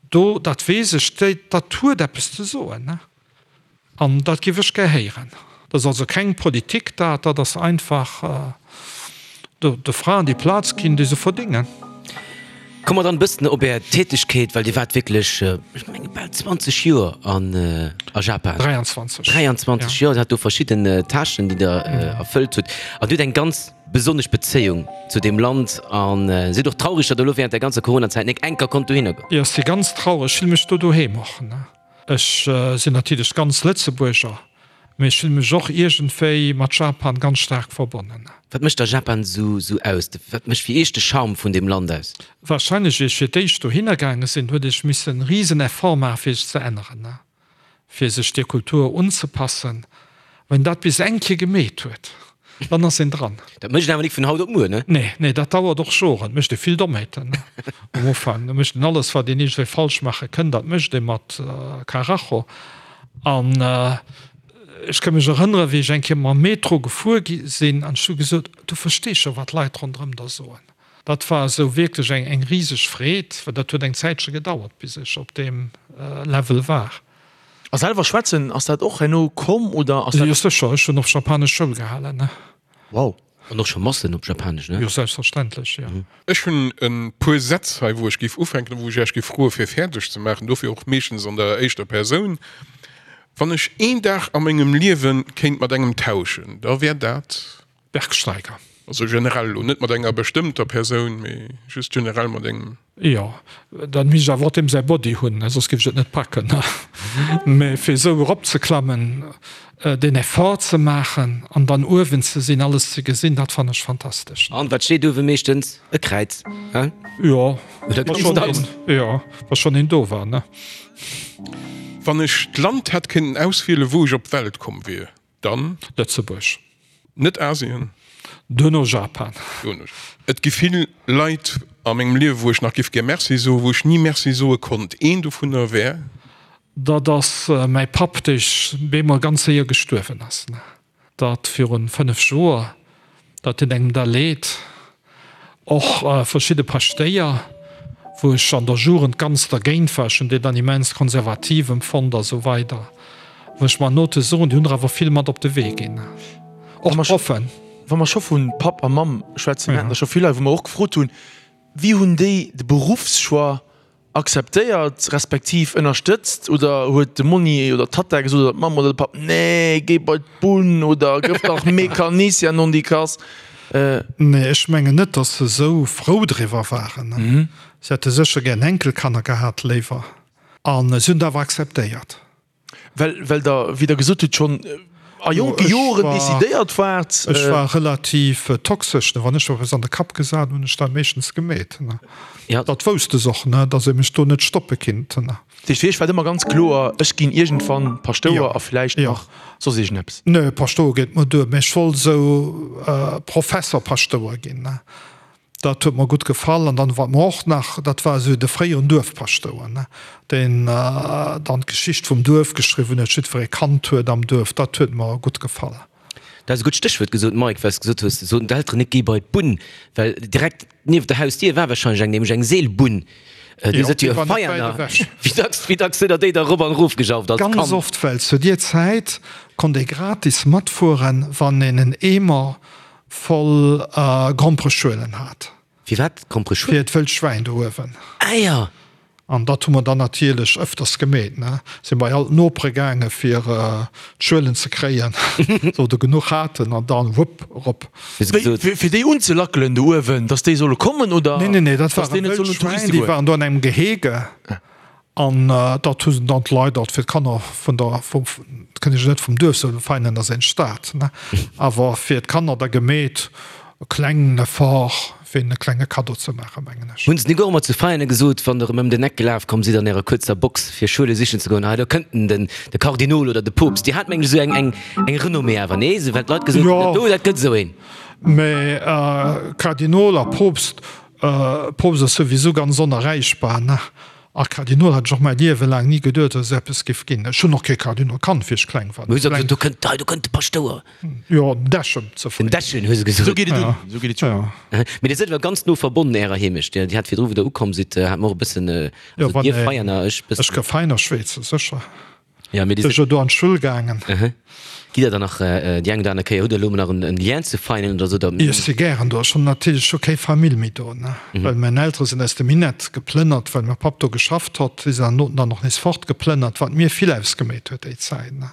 do, dat weess ech, déi, dat huet eppes ze soen. An dat géif ech gär héieren. Dat ass also keng Politik dat, dat ass einfach de Fraen déi Plaz ginn, déi se verdéngen. Komme mer dann e bëssen op Är Tätegkeet, well Dir waart wierklech, ech menge bal 20 Joer an a Japan. 23. 23 Joer, Dir hat do verschidden Tâchen, déi Der erfëllt hutt. An Dir hutt eng ganz besonnesch Bezéiung zu deem Land a sidd och traureg, datt Der elo während der ganzer Coronazäit nek enker konnt dohinner goen. Jo, ech si ganz traureg, ech fille mech do doheem och. Ech sinn natierlech ganz Lëtzebuerger, mee ech fille mech och iergendwéi mat Japan ganz staark verbonnen. Wat mécht da Japan esou aus? Wat mécht fir Iech de Charme vun deem Land aus? Warscheinlech, wéi ech fir d'éischt dohinner gaange sinn, huet ech missen e risen Effort maachen, fir sech ze änneren, fir sech der Kultur unzepassen. Wann een dat bis eng Kéier gemeet huet, dann ass een dran. Dat mécht een awer nik vun haut op muer, ne? Nee, nee, dat dauert och Joren. Et mécht ee vill Dommheeten um Ufank. Da mécht een alles, wat een iergendwéi falsch maache kënnt, dat mécht ee mat Karacho. An. Ech ka mech erënneren, wéi ech eng Kéier mam Metro gefuer gi sinn an ech hu gesot, Du verstees scho, wat d'Leit ronderëm der soen. Dat war esou wierklech eng, eng riseg Freed, well dat huet eng Zäitche gedauert, bis ech op deem Level war. A selwer schwätzen, ass dat och herno komm oder ass dat. Jo sécher, ech hunn och japanesch Schoul gehalen, ne. Wow. An och scho Massen op Japanesch, ne? Jo selbstverständlech, jo. Ech hunn e puer Sätz hei, wou ech géif ufänken a wou ech Iech géif froe fir fäerdeg ze maachen, dofir och meeschtens an der éischter Persoun. Wann ech een Dag a mengem Liewe kéint mat engem tauschen, da wär dat. Bergsteiger. Also generell elo, net mat enger bestëmmter Persoun, mee just generell mat engem. Jo, dann misst ech awer och deem säi Body hunn, soss géif ech et net packen. Mee fir esou eropzeklammen, deen Effort ze maachen an dann uewen ze sinn, alles ze gesinn, dat fannen ech fantastesch. An wat steet uewe meeschtens? E Kräiz, he? Jo, wa schonn een, jo, wa schonn een do war, ne? Wann ech d'Land hätt kënnen auswielen, wou ech op d'Welt komm wier, Dann? Lëtzebuerg. Net Asien? Duerno Japan. Duerno. Et gi vill Leit a mengem Liewe wou ech nach giff gär Merci soen, wou ech ni Merci soe konnt. Een dovunner wär? Dat ass mäi Papp, dee bemol ganz séier gestuerwen ass. Dat virun 5 Joer. Dat deet engem da leed. Och verschidde Paschtéier, wou ech an der Jugend ganz dergéint war, ech hunn déi dann immens konservativ empfonnt a sou weider, wou ech mer Note soen, déi hunn der awer vill mat op de Wee ginn. Och d'Proffen. Wa mer scho vu Papp a Mamm schwätzen, mir haten der scho vill hei, wou mer och gefrot hunn, wéi hunn déi de Beruffschoix Akzeptéiert respektiv ënnerstëtzt oder huet de Monni oder d'Tatta gesot oder d'Mamm oder de Papp, Nee, géi bei d'Bunn oder gëff dach Mecanicien nondikass? Nee, ech mengen net, datt se esou frou driwwer waren. Se hätte sécher gär Enkelkanner gehat léiwer. A se hunn et awer akzeptéiert. Well, well Der, wéi Der gesot hutt, schonn a jonke Joren decidéiert waart. Ech war relativ toxesch, ne. Wann ech eppes an de Kapp gesat hunn, hunn ech dat meeschtens gemeet, ne. Dat wousst se och, ne, datt ee mech do net stoppe kinnt, ne. Dat heescht, fir Iech war et ëmmer ganz kloer, ech ginn iergendwann Paschtouer a vläicht nach soss iergendeppes? Nee, Paschtouer geet mer duer, mä ech wollt esou Professer-Paschtouer ginn, ne. Dat huet mer gutt gefall. An dann, wat mer och nach, dat war esou de fréieren Duerfpaschtouer, ne, deen dann d'Geschicht vum Duerf geschriwwen huet, jiddweree kannt huet am Duerf, dat huet mer gutt gefall. Du has e gutt Stéchwuert gesot, Mike, well s de gesot hues, soten d'Elteren net, géi bei d'Bunn, well direkt nieft der Hausdier war wahrscheinlech eng, nämlech eng Seelbunn. Dir sidd jo e Veianer. Wéi dacks, wéi dacks sidd der déi da erop an erof gejauft als Kand? Ganz oft, well zu dier Zäit konnt ee gratis matfueren, wann een en Eemer Voll Grompereschuelen hat. Firwat Grompereschuelen? Fir d'wëllt Schwäin do uewen. Ah jo! An dat hu mer dann natierlech ëfters gemeet, ne? Si bei all d'Nopere gaange fir d'Schuelen ze kréien, sou der genuch haten, an dann wupp erop. Fir déi unzelackelen do uewen, dass déi solle kommen, oder? Nee, nee, nee, dat ware wëllt Schwäin, déi waren do an engem Gehege. An dat hu se dann d'Leit alt fir d'Kanner vun der, vum, dat kënnt ech net vum Duerf soen, Veianen ass eng Stad, ne, awer fir d'Kanner da gemeet, e klengen Effort, fir hinnen e klenge Kaddo ze maachen, mengen ech. Hunn se nik och ëmmer zu Veianen gesot, wann der erëm ëm den Eck gelaf komm sidd an ärer kuerzer Box fir Schuele sichen ze goen, hei do kënnt en, den, de Kardinol oder de Poopst. Dir hat mengen ech esou eng, eng, eng Renommée awer, nee? Esou well d'Leit gesot hunn, dat do, dat gëtt esou een. Mä Kardinol a Poopst, Poopst ass souwisou ganz onerreichbar, ne? A Kardinol hat ech och mäi Liewe laang ni geduet, datt et eppes géif ginn. Ech hunn och kee Kardinol kannt, wéi ech kleng war. Hu se gesot, do kënnt, hei do kënnt de Paschtouer. Jo, den Dechen ze fréi. Den Dechen, hu se gesot. Esou geet et un, esou geet et un. Mee Dir sidd awer ganz no verbonnen Ärer Heemecht. Dir hat virdru, wou Der ukomm sidd, hat mer och e bëssen, also Dir Veianer, ech bëssen. Ech ka Veiner schwätzen, sécher. Ja, mee Dir Sinn jo do an d'Schull gaangen. Gitt Der dann nach déi eng oder aner Kéier, hutt Der elo nach en Lien zu Veinen oder sou? Jo, ech si gären do. Ech hunn natierlech scho keng Famill méi do, ne, well mäin Eltere sinn aus dem Minett geplënnert, well mäi Papp do geschafft hott. Si sinn dann dann och nees fortgeplënnert, wat mir vill ausgeméit huet déi Zäit, ne,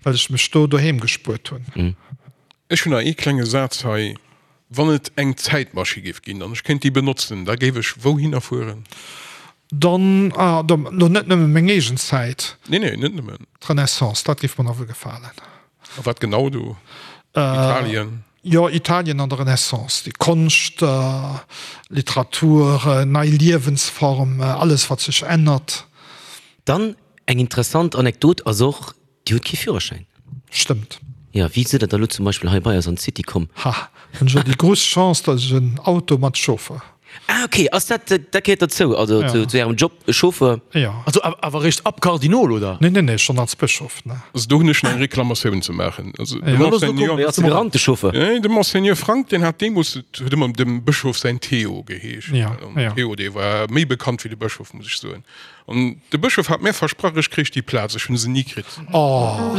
well ech mech do doheem gespuert hunn. Ech hunn nach ee klenge Saz hei. Wann et eng Zäitmaschi géif ginn an ech kéint déi benotzen, da géif ech wouhinner fueren? Dann, ah, da lo net nëmme meng eegen Zäit. Nee, nee, net nëmmen. D'Renaissance, dat géif mer nawell gefalen. A wat genau do? Italien? Jo, Italien an der Renaissance, déi Konscht, Literatur, nei Liewensform, alles wat sech ännert. Dann eng interessant Anekdot ass och, Dir hutt kee Führerschäin? Stëmmt. Jo, wéi sidd der da lo zum Beispill hei bei eis an d'City komm? Ha, hunn ech jo déi grouss Chance, dass ech en Auto mat Chauffer. Ah ok, ass dat, dat gehéiert derzou, also zu, zu Ärem Job, Chauffeur? Jo. Also awer eréischt ab Kardinol, oder? Nee, nee, nee, schonn als Bëschof, ne. Also do hunn ech nach eng Reklamatioun ze maachen. Also de Ja. Monseigneur, Wéi ass de gerannt, de Chauffeur? Nee, de Monseigneur Frank, deen hat deemools, et huet ëmmer dem Bëschof säin Theo geheescht. Ja, An ja. Theo, dee war méi bekannt wéi de Bëschof, muss ech soen. An de Bëschof hat mär versprach, ech kréich déi Plaz. Ech hunn se ni kritt. Oh.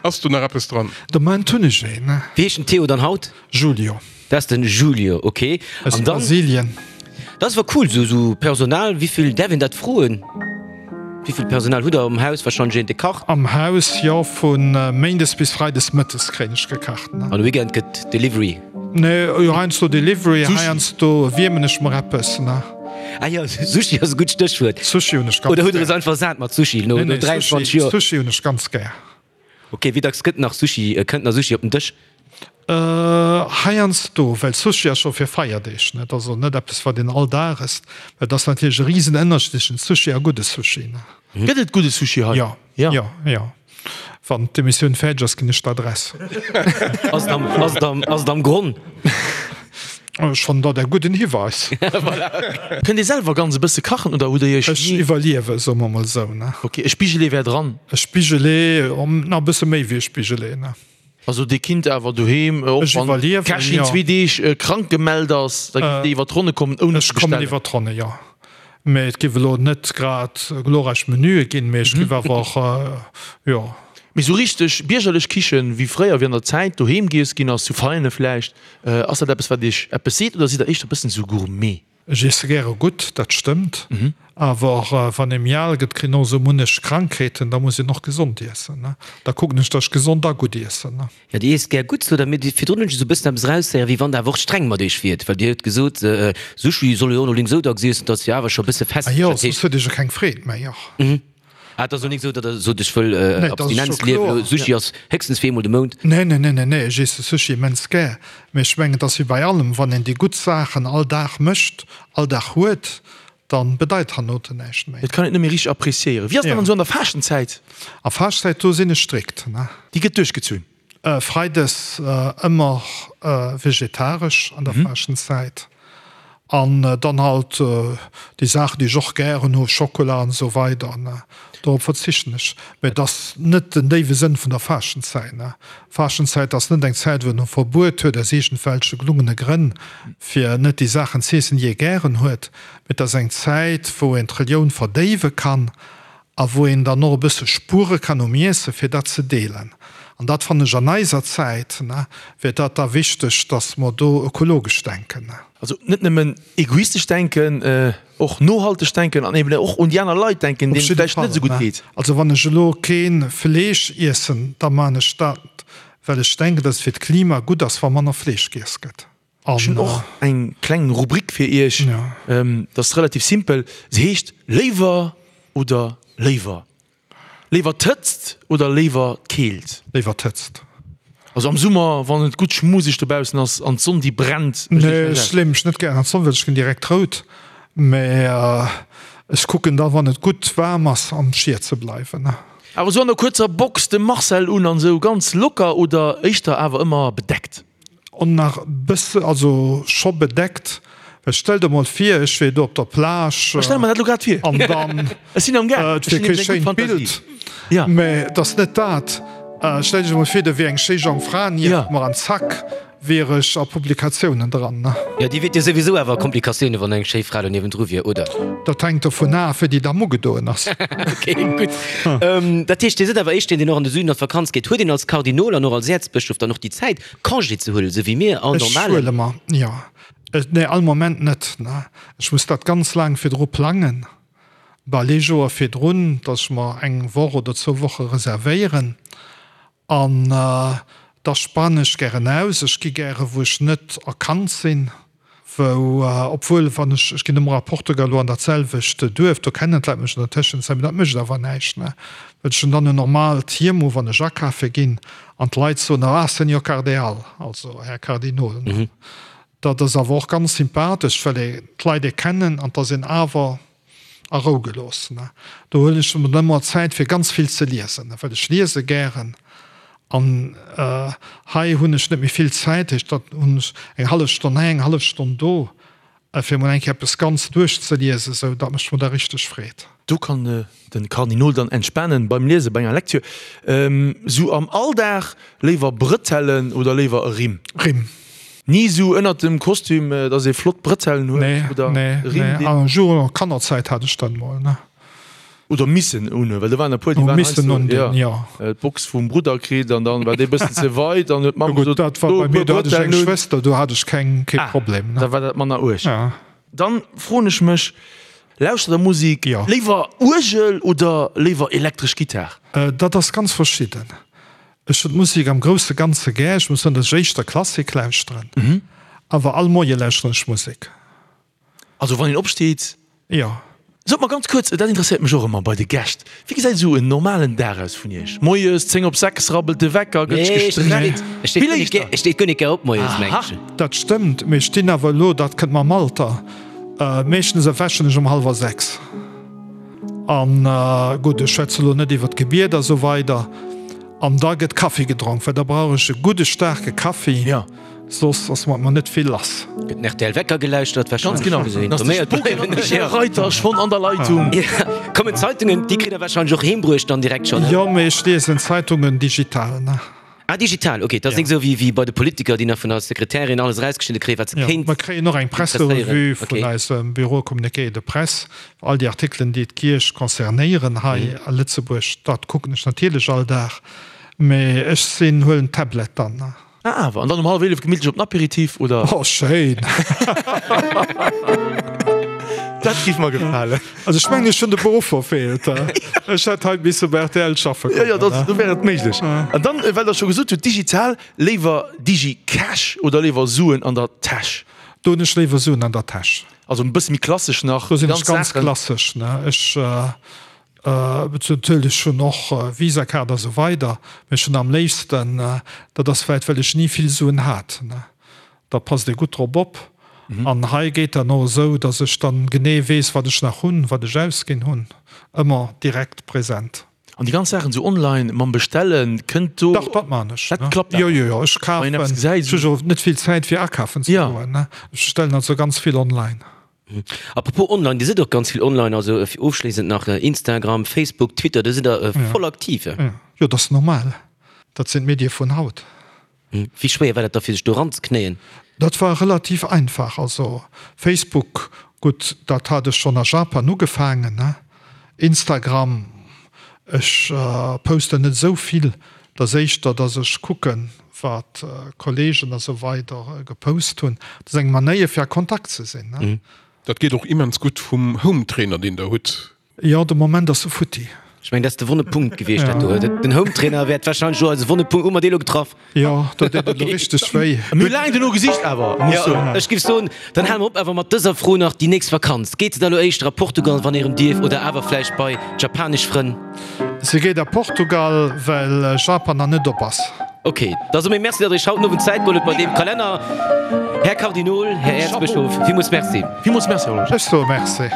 Ass do nach eppes dran? De Moment hunn ech een, ne. Wéi heescht den Theo dann haut? Julio. Dat ass den Julio, ok. Aus An dann, Brasilien. dat ass awer cool, sou sou Personal, wéivill, däerf een dat froen? Wéivill Personal hutt der am Haus? Wahrscheinlech een, dee kacht. Am Haus, jo, vu Méindes bis Freides mëttes kréien ech gekacht, ne. An de Weekend gëtt Delivery? Nee, jo, heiansdo Delivery, heiansdo wiermen ech mer eppes, ne. Ah jo, Sushi ass e gutt Stéchwuert. Sushi hunn ech ganz Oder hutt der gär. es einfach sat mat Sushi no Nee, nee, 23 Sushi, Joer? Sushi hunn ech ganz gär. Ok, wéi dacks gëtt nach Sushi, kënnt nach Sushi op den Dësch? Heiansdo, well Sushi ass scho fir Feierdeeg, net? Also net eppes wat een all Dag ësst, well et ass natierlech e risen Ënnerscheed tëschent Sushi a gudde Sushi, ne? Gëtt et gudde Sushi hei? Jo, jo, jo. Wann d'Emissioun fäerdeg ass, ginn ech d'Adress. Ass et am, ass et am, ass et am Gronn? Ech fannen dat e gudden Hiweis. Kënnt Dir selwer ganz e bësse kachen oder hutt Dir Iech Ech ni. iwwerliewe, soe mer mol esou, ne? Ok, e Spigelee wär dran. E Spigelee, nach e bësse méi wéi e Spigelee, ne? Also Dir kinnt awer doheem, och Ech wann iwwerliewen, d'Kächin jo. zwee Deeg krank gemellt ass, da giff Dir iwwer d'Ronne kommen ouni Ech ze kommen bestellen? iwwer d'Ronne, jo. Mee et giff elo net grad glorreich Menüe ginn, mee ech giff awer och, jo. Mee sou richteg biergerlech Kichen, wéi fréier, wéi an der Zäit doheem giess ginn ass, zu Veianen vläicht, ass dat eppes wat Iech eppes seet oder sidd Der éischter e bëssen sou Gourmet? Ech iesse gäre gutt, dat stëmmt. Awer wann ee méi al gëtt, kritt een och esou munnech Krankheeten, da muss een och gesond iessen. Da kucken ech, datt ech gesond a gutt iessen. Jo, Dir iesst gär gutt, sot Der. Mee virdrun hunn ech esou e bëssen eppes eraushéieren, wéi wann Der awer och streng mat Iech wiert. Well Dir hutt gesot, Sushi soll jo och elo esou dacks iessen, datt jo awer scho e bësse fest. Ah jo, soss huet ee jo keng Freed méi, och. Ah, et ass elo nik esou, datt Der sot, ech wëll Nee, dat ass Abstinenz scho liewen, kloer. elo Sushi ass héchstens fir eemol de Mount. Nee, nee, nee, nee, nee, ech iesse Sushi immens gär. Mee ech mengen, et ass wéi bei allem, wann een déi gutt Saachen all Dag mécht, all Dag huet, da bedeit hernote näischt méi. Et kann een et net méi richteg appréciéieren. Wéi ass dat dann esou an der Faaschtenzäit? A Faaschtezäit, do sinn ech strikt, ne. Déi gëtt duerchgezunn? Freides ëmmer vegetaresch an der Faaschtenzäit an dann halt déi Saachen déi ech och gären hu, Schokola an esou weider, dorop verzichten ech. Mä et ass net den déiwe Sënn vun der Faaschtenzäit. Faaschtenzäit ass net eng Zäit wou een e Verbuet huet aus iergendwelche gelungene Grënn fir net déi Saachen z'iessen déi ee gären huet, mä et ass eng Zäit wou een d'Relioun verdéiwe kann a wou een dann och e bësse spuere kann um Iesse fir dat ze deelen. An dat fannen ech an eiser Zäit, ne, wier dat da wichteg, dass mer do ökologesch denken. Also net nëmmen egoistesch denken, och nohalteg denken an eben och un déi aner Leit denken, deenen et vläicht net esou gutt geet. Also wann ech elo kee Fleesch iessen, da maan ech dat, well ech denken, dass et fir d'Klima gutt ass, wa manner Fleesch giess gëtt. Ech hunn och eng kleng Rubrik fir Iech. Dat ass relativ simpel. Se heescht Léiwer oder léiwer. Léiwer d'Hëtzt oder léiwer d'Keelt? Léiwer d'Hëtzt. Also am Summer, wann et gutt schmuseg dobaussen ass an d'Sonn déi brennt. Nee, ech leeë mech net gären an d'Sonn, well ech ginn direkt rout. Mä ech kucken da, wann et gutt waarm ass, am Schiet ze bleiwen. Awer esou an der kuerzer Box de Marcel un an esou ganz locker oder éischter awer ëmmer bedeckt? On nach bësse, also scho bedeckt, well stell der mol vir, ech wier do op der Plage. Ech stelle mer dat elo grad vir. An dann, Ech sinn am gaang, et wier kee schéint Bild, mä et ass net dat. Stell dech emol vir, do wier eng schéi jonk Fra nieft mer an zack wier ech a Publikatiounen dran. Jo, déi wiert jo souwisou awer a Komplikatiounen, wann eng schéi Fra do niewendru wier, oder? Dat hänkt dovun af, wéi déi Damm ugedoen ass. Ok, gutt. Dat heescht, Dir sidd awer éischt deen, deen och an de Süden an d'Vakanz geet. Huet een als Kardinol an och als Äerzbëschof dann och déi Zäit, Congé ze huelen, esou wéi mir all Ech normalen. huele mer, jo. Nee, all Moment net. Ech muss dat ganz laang virdru plangen, bal ee Joer virdrun, datt ech mer eng Woch oder zwou Woche reservéieren. An da spanen ech gären aus. Ech gi gäre wou ech net erkannt sinn. Wou, obwuel wann ech, ech ginn ëmmer a Portugal elo an dat selwecht Duerf, do kennen d'Leit mech an der Tëschenzäit, mee dat mécht awer näischt, ne, well ech hunn dann en normaalt Hiem u wann ech akafe ginn an d'Leit soen, ah, Senhor Cardeal, also Här Kardinol, ne. Dat ass awer och ganz sympathesch, well ee d'Leit ee kennen an 't ass een awer a Rou gelooss. Do huelen ech mer ëmmer Zäit fir ganz vill ze liesen, well ech liese gären. An hei hunn ech net méi vill Zäit, heescht dat hunn ech eng hallef Stonn hei, eng hallef Stonn do. Fir mol eng Kéier eppes ganz duerchzeliesen, sou, dat mécht mer da richteg Freed. Do kann den Kardinol dann entspanen beim Liesen, bei enger Lektür. Sou am Alldag, léiwer Brëtellen oder léiwer e Rimm? Rimm. Ni sou ënnert dem Kostüm, dass ee flott Brëtellen huet oder e Rimm, deen. Nee, nee, an Kannerzäit hat ech dat mol, ne. Oder missen unhunn, well do waren e puer, déi waren heiansdo, jo, d'Box vum Brudder kritt an dann war dee bëssen ze weit an huet d'Mamm gesot, Dat war bei mir, do hat ech eng Schwëster, do hat ech keng, kee Problem. Ah, da war dat manner uerg. Dann froen ech mech, lauschtert der Musik léiwer Uergel oder léiwer elektresch Gittar? Dat ass ganz verschidden. Ech hunn d'Musik am grousse Ganze gär. Ech muss soen, datt ech éischter Klassik lauschteren, awer all Moie lauschteren ech Musek. Also wann een opsteet? Jo. Sot mer ganz kuerz, dat interesséiert mech och ëmmer bei de Gäscht, wéi gesäit esou en normalen Dag aus vun Iech? Moies 10 op 6 rabbelt de Wecker, gëtt sech gestreckt. Nee, ech steet ech steet guer net gär op moies, meng ech. Dat stëmmt, mee ech stinn awer elo, dat kënnt mam Alter, meeschtens erwächen ech um hallwer 6. An gutt, ech schwätze elo net iwwer d'Gebiet a sou weider. An da gëtt Kaffi gedronk, well da brauch ech e gudde staarke Kaffi. Soss ass mat mer net vill lass. Gëtt den rtl Wecker gelauschtert wahrscheinlech. Ganz genau. Dann ass de Spooky Michel Reiter schonn an der Leitung. Kommen d'Zeitungen, déi kritt der wahrscheinlech och heem bruecht dann direkt schonn, ne? Jo, mee ech liesen d'Zeitungen digital, ne? Ah, digital, ok. Dat ass nik esou wéi bei de Politiker, déi nach vun der Sekretärin alles erausgeschnidde kréien, wat se kéint. Jo, mer kréien och eng Presserevue vun eisem Bureau Communiqué de Presse, all déi Artikelen, déi d'Kierch concernéieren hei a Lëtzebuerg. Dat kucken ech natierlech all Dag, mee ech sinn, huelen d'Tablet dann, ne? Ah awer, an dann um hallef 11 gemittlech op den Apéritif, oder? Oh schéin! Dat giff mer gefalen. Also ech mengen ech hunn de Beruff verfeelt. Ech hätt hei misse bei rtl schaffe kommen. Jo, jo, do wär et méiglech. An dann, well der scho gesot hutt, digital, léiwer Digi-Cash oder léiwer Suen an der Täsch? Do hunn ech léiwer Suen an der Täsch. Also e bësse méi klassesch nach. Do sinn ech ganz klassesch, ne. Ech Natierlech hunn och Visa-Kaart a sou weider, mee ech hunn am léifsten, dat ass vläit well ech ni vill Suen hat, da passt ee gutt drop op. An hei geet dat och esou, datt ech dann genee weess, wat ech nach hunn, wat ech ausginn hunn, ëmmer direkt present. An déi ganz Saachen esou online mam Bestellen, kënnt do. Dach, dat maan ech. Dat klappt awer? Jo, jo, jo, ech kafen, ech hu jo net vill Zäit fir akafen ze goen, ech bestellen also ganz vill online. Apropos online, Dir sidd och ganz vill online, also fir ofschléissend nach Instagram, Facebook, Twitter, do sidd Der voll aktiv. Jo, dat ass normal, dat sinn d'Medie vun haut. Wéi schwéier war dat da fir sech do eranzeknéien? Dat war relativ einfach. Also Facebook, gutt, dat hat ech schonn a Japan ugefaangen, ne. Instagram, ech posten net esou vill, dat ass éischter, datt ech kucken, wat Kollegen a sou weider gepost hunn. Dat ass eng Manéier fir a Kontakt ze sinn, ne? Dat geet och immens gutt vum Hometrainer deen der hutt. Jo, de Moment ass e futti. Ech mengen, dat ass de wonne Punkt gewiescht, dat do. Den Hometrainer wäert wahrscheinlech elo eise wonne Punkt. Hu mer dee elo getraff? Jo, do deet et elo richteg wéi. Mir hu laang dono gesicht awer, muss ech soen. Ech géif soen, dann hale mer op awer mat dëser Fro nach, déi nächst Vakanz, geet se da elo éischter a Portugal, wann ee erëm dierf, oder awer vläicht bei d'japanesch Frënn? Se geet a Portugal, well Japan nach net op ass. Ok, da soe mir Merci, datt Der Iech haut den Owend Zäit geholl hutt bei deem Kalenner. Här Kardinol, Här Äerzbëschof, villmools Merci. Villmools Merci, Här Losch. Ech soe Merci.